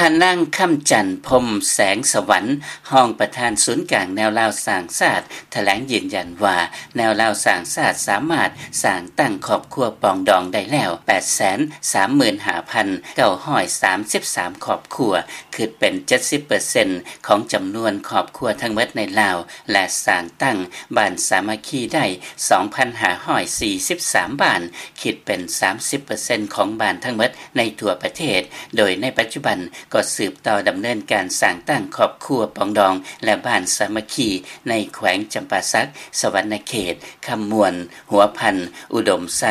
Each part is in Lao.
ທ່ານນາງ ຄຳຈັນ ພົມແສງສະຫວັນ ຮອງປະທານສູນກາງແນວລາວສ້າງຊາດ ຖະແຫຼງຢືນຢັນວ່າ ແນວລາວສ້າງຊາດສາມາດສ້າງຕັ້ງຄອບຄົວປອງດອງໄດ້ແລ້ວ ແປດແສນສາມໝື່ນຫ້າພັນເກົ້າຮ້ອຍສາມສິບສາມຄອບຄົວ ຄິດເປັນເຈັດສິບເປີເຊັນຂອງຈຳນວນຄອບຄົວທັງໝົດໃນລາວ ແລະ ສ້າງຕັ້ງບ້ານສາມັກຄີໄດ້ສອງພັນຫ້າຮ້ອຍສີ່ສິບສາມບ້ານ ຄິດເປັນສາມສິບເປີເຊັນຂອງບ້ານທັງໝົດໃນທົ່ວປະເທດ ໂດຍໃນປັດຈຸບັນກໍສືບຕໍ່ດຳເນີນການສ້າງຕັ້ງຄອບຄົວປອງດອງ ແລະ ບ້ານສາມັກຄີໃນແຂວງຈຳປາສັກ, ສະຫວັນນະເຂດ, ຄຳມ່ວນ, ຫົວພັນ, ອຸດົມໄຊ,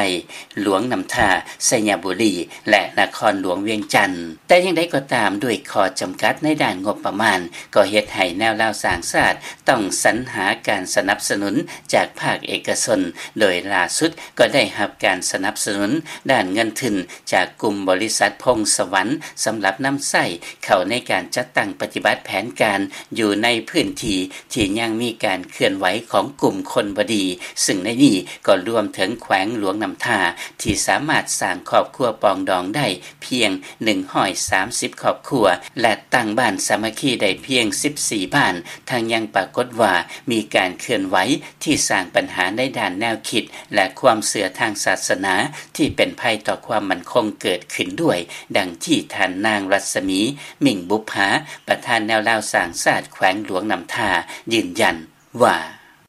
ຫຼວງນ້ຳທາ, ໄຊຍະບູລີ ແລະ ນະຄອນຫຼວງວຽງຈັນ. ແຕ່ຢ່າງໃດກໍຕາມ, ດ້ວຍຂໍ້ຈຳກັດໃນດ້ານງົບປະມານ, ກໍເຮັດໃຫ້ແນວລາວສ້າງຊາດຕ້ອງສັນຫາການສະໜັບສະໜູນຈາກພາກເອກະຊົນ, ໂດຍລ່າສຸດກໍໄດ້ຮັບການສະໜັບສະໜູນດ້ານເງິນທຶນຈາກກຸ່ມບໍລິສັດພົງສະຫວັນ ສຳລັບນຳໃຊ້ເຂົ້າໃນການຈັດຕັ້ງປະຕິບັດແຜນການຢູ່ໃນພື້ນທີ່ທີ່ຍັງມີການເຄື່ອນໄຫວຂອງກຸ່ມຄົນບໍ່ດີ, ຊຶ່ງໃນນີ້ກໍລວມເຖິງແຂວງຫຼວງນ້ຳທາ ທີ່ສາມາດສ້າງຄອບຄົວປອງດອງໄດ້ ພຽງໜຶ່ງຮ້ອຍສາມສິບຄອບຄົວ ແລະ ຕັ້ງບ້ານສາມັກຄີໄດ້ພຽງສິບສີ່ບ້ານ, ທັງຍັງປາກົດວ່າມີການເຄື່ອນໄຫວທີ່ສ້າງບັນຫາໃນດ້ານແນວຄິດ ແລະ ຄວາມເຊື່ອທາງສາສະໜາທີ່ເປັນໄພຕໍ່ຄວາມໝັ້ນຄົງເກີດຂຶ້ນດ້ວຍ, ດັ່ງທີ່ທ່ານນາງ ລັດສະໝີ ມິ່ງບຸບຜາ ປະທານແນວລາວສ້າງຊາດແຂວງຫຼວງນ້ຳທາ ຢືນຢັນວ່າ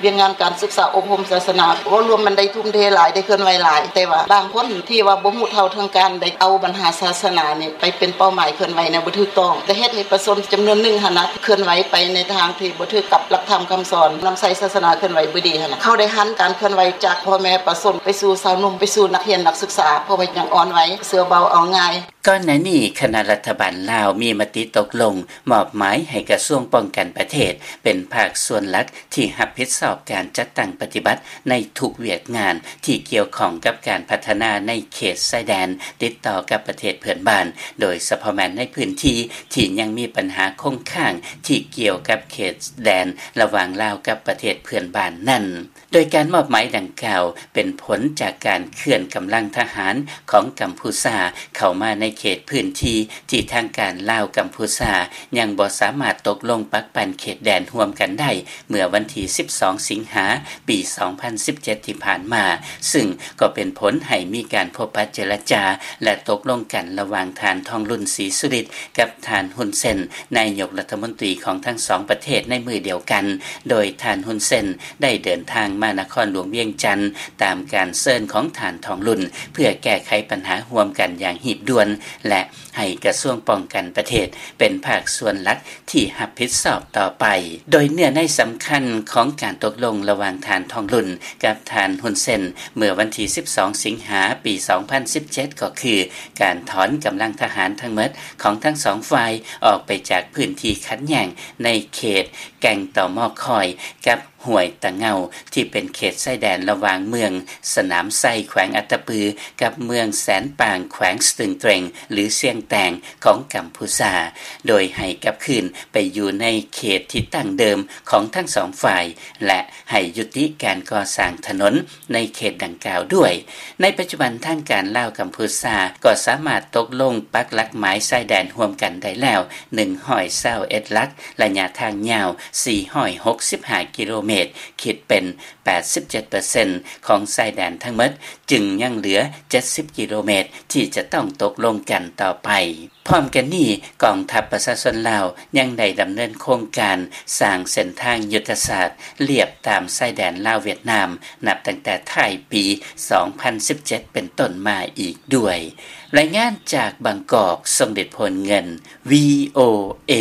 ວຽກງານການສຶກສາອົບຮົມສາສະໜາ ເວົ້າລວມມັນໄດ້ທຸ່ມເທຫຼາຍ ໄດ້ເຄື່ອນໄຫວຫຼາຍ ແຕ່ວ່າບາງຄົນທີ່ວ່າບໍ່ຮູ້ເທົ່າເຖິງການ ໄດ້ເອົາບັນຫາສາສະໜານີ້ໄປເປັນເປົ້າໝາຍເຄື່ອນໄຫວແນວບໍ່ຖືກຕ້ອງ ໄດ້ເຮັດໃຫ້ປະຊາຊົນຈຳນວນໜຶ່ງຫັ້ນນະ ເຄື່ອນໄຫວໄປໃນທາງທີ່ບໍ່ຖືກກັບຫຼັກທຳຄຳສອນ, ນຳໃຊ້ສາສະໜາເຄື່ອນໄຫວບໍ່ດີຫັ້ນນະ. ເຂົາໄດ້ຫັນການເຄື່ອນໄຫວຈາກພໍ່ແມ່ປະຊາຊົນ ໄປສູ່ຊາວໜຸ່ມ, ໄປສູ່ນັກຮຽນນັກສຶກສາ, ເພາະວ່າຍັງອ່ອນໄວ, ເຊື່ອເບົາເອົາງ່າຍ. ກ່ອນໜ້ານີ້ ຄະນະລັດຖະບານລາວມີມະຕິຕົກລົງມອບໝາຍໃຫ້ກະຊວງປ້ອງກັນປະເທດ ເປັນພາກສ່ວນຫຼັກທີ່ຮັບຜິດຊອບການຈັດຕັ້ງປະຕິບັດໃນທຸກວຽກງານທີ່ກ່ຽວຂ້ອງກັບການພັດທະນາໃນເຂດຊາຍແດນຕິດຕໍ່ກັບປະເທດເພື່ອນບ້ານ, ໂດຍສະເພາະແມ່ນໃນພື້ນທີ່ທີ່ຍັງມີບັນຫາຄົງຄ້າງທີ່ກ່ຽວກັບເຂດແດນລະຫວ່າງລາວກັບປະເທດເພື່ອນບ້ານນັ້ນ. ໂດຍການມອບໝາຍດັ່ງກ່າວເປັນຜົນຈາກການເຄື່ອນກຳລັງທະຫານຂອງກຳພູຊາເຂົ້າມາໃນເຂດພື້ນທີ່ທີ່ທາງການລາວ-ກຳພູຊາຍັງບໍ່ສາມາດຕົກລົງປັກປັນເຂດແດນຮ່ວມກັນໄດ້ ເມື່ອວັນທີສິບສອງ ສິງຫາ ປີສອງພັນສິບເຈັດ ທີ່ຜ່ານມາ, ຊຶ່ງກໍເປັນຜົນໃຫ້ມີການພົບປະເຈລະຈາ ແລະ ຕົກລົງກັນລະຫວ່າງທ່ານ ທອງລຸນ ສີສຸລິດ ກັບທ່ານ ຮຸນ ເຊນ ນາຍົກລັດຖະມົນຕີຂອງທັງສອງປະເທດໃນມື້ດຽວກັນ, ໂດຍທ່ານ ຮຸນ ເຊນ ໄດ້ເດີນທາງມານະຄອນຫຼວງວຽງຈັນ ຕາມການເຊີນຂອງທ່ານ ທອງລຸນ ເພື່ອແກ້ໄຂບັນຫາຮ່ວມກັນຢ່າງຮີບດ່ວນ ແລະ ໃຫ້ກະຊວງປ້ອງກັນປະເທດເປັນພາກສ່ວນຫຼັກທີ່ຮັບຜິດຊອບຕໍ່ໄປ. ໂດຍເນື້ອໃນສຳຄັນຂອງການຕົກລົງລະຫວ່າງທ່ານ ທອງລຸນ ກັບທ່ານ ຮຸນ ເຊນ ເມື່ອວັນທີສິບສອງ ສິງຫາ ປີສອງພັນສິບເຈັດ ກໍຄື ການຖອນກຳລັງທະຫານທັງໝົດຂອງທັງສອງຝ່າຍອອກໄປຈາກພື້ນທີ່ຂັດແຍ້ງໃນເຂດແກ່ງຕໍມໍຄອຍ ກັບຫ້ວຍຕະເງົາ ທີ່ເປັນເຂດຊາຍແດນລະຫວ່າງເມືອງສະໜາມໄຊ ແຂວງອັດຕະປື ກັບເມືອງແສນປາງ ແຂວງສະຕຶງເຕຣັງ ຫຼື ຊຽງແຕງ ຂອງກຳພູຊາ, ໂດຍໃຫ້ກັບຄືນໄປຢູ່ໃນເຂດທີ່ຕັ້ງເດີມຂອງທັງສອງຝ່າຍ ແລະ ໃຫ້ຍຸຕິການກໍ່ສ້າງຖະໜົນ ໃນເຂດດັ່ງກ່າວດ້ວຍ. ໃນປັດຈຸບັນທາງການລາວ-ກຳພູຊາກໍສາມາດຕົກລົງປັກຫຼັກໝາຍຊາຍແດນຮ່ວມກັນໄດ້ແລ້ວ ໜຶ່ງຮ້ອຍຊາວເອັດຫຼັກ, ໄລຍະທາງຍາວ ສີ່ຮ້ອຍຫົກສິບຫ້າກິໂລເມດ, ຄິດເປັນແປດສິບເຈັດເປີເຊັນຂອງຊາຍແດນທັງໝົດ, ຈຶ່ງຍັງເຫຼືອເຈັດສິບກິໂລເມດທີ່ຈະຕ້ອງຕົກລົງກັນຕໍ່ໄປ. ພ້ອມກັນນີ້, ກອງທັບປະຊາຊົນລາວຍັງໄດ້ດຳເນີນໂຄງການສ້າງເສັ້ນທາງຍຸດທະສາດລຽບຕາມຊາຍແດນລາວ-ຫວຽດນາມ ນັບຕັ້ງແຕ່ທ້າຍປີສອງພັນສິບເຈັດເປັນຕົ້ນມາອີກດ້ວຍ. ລາຍງານຈາກບາງກອກ, ຊົງເດດ ໂພນເງິນ, ວີໂອເອ.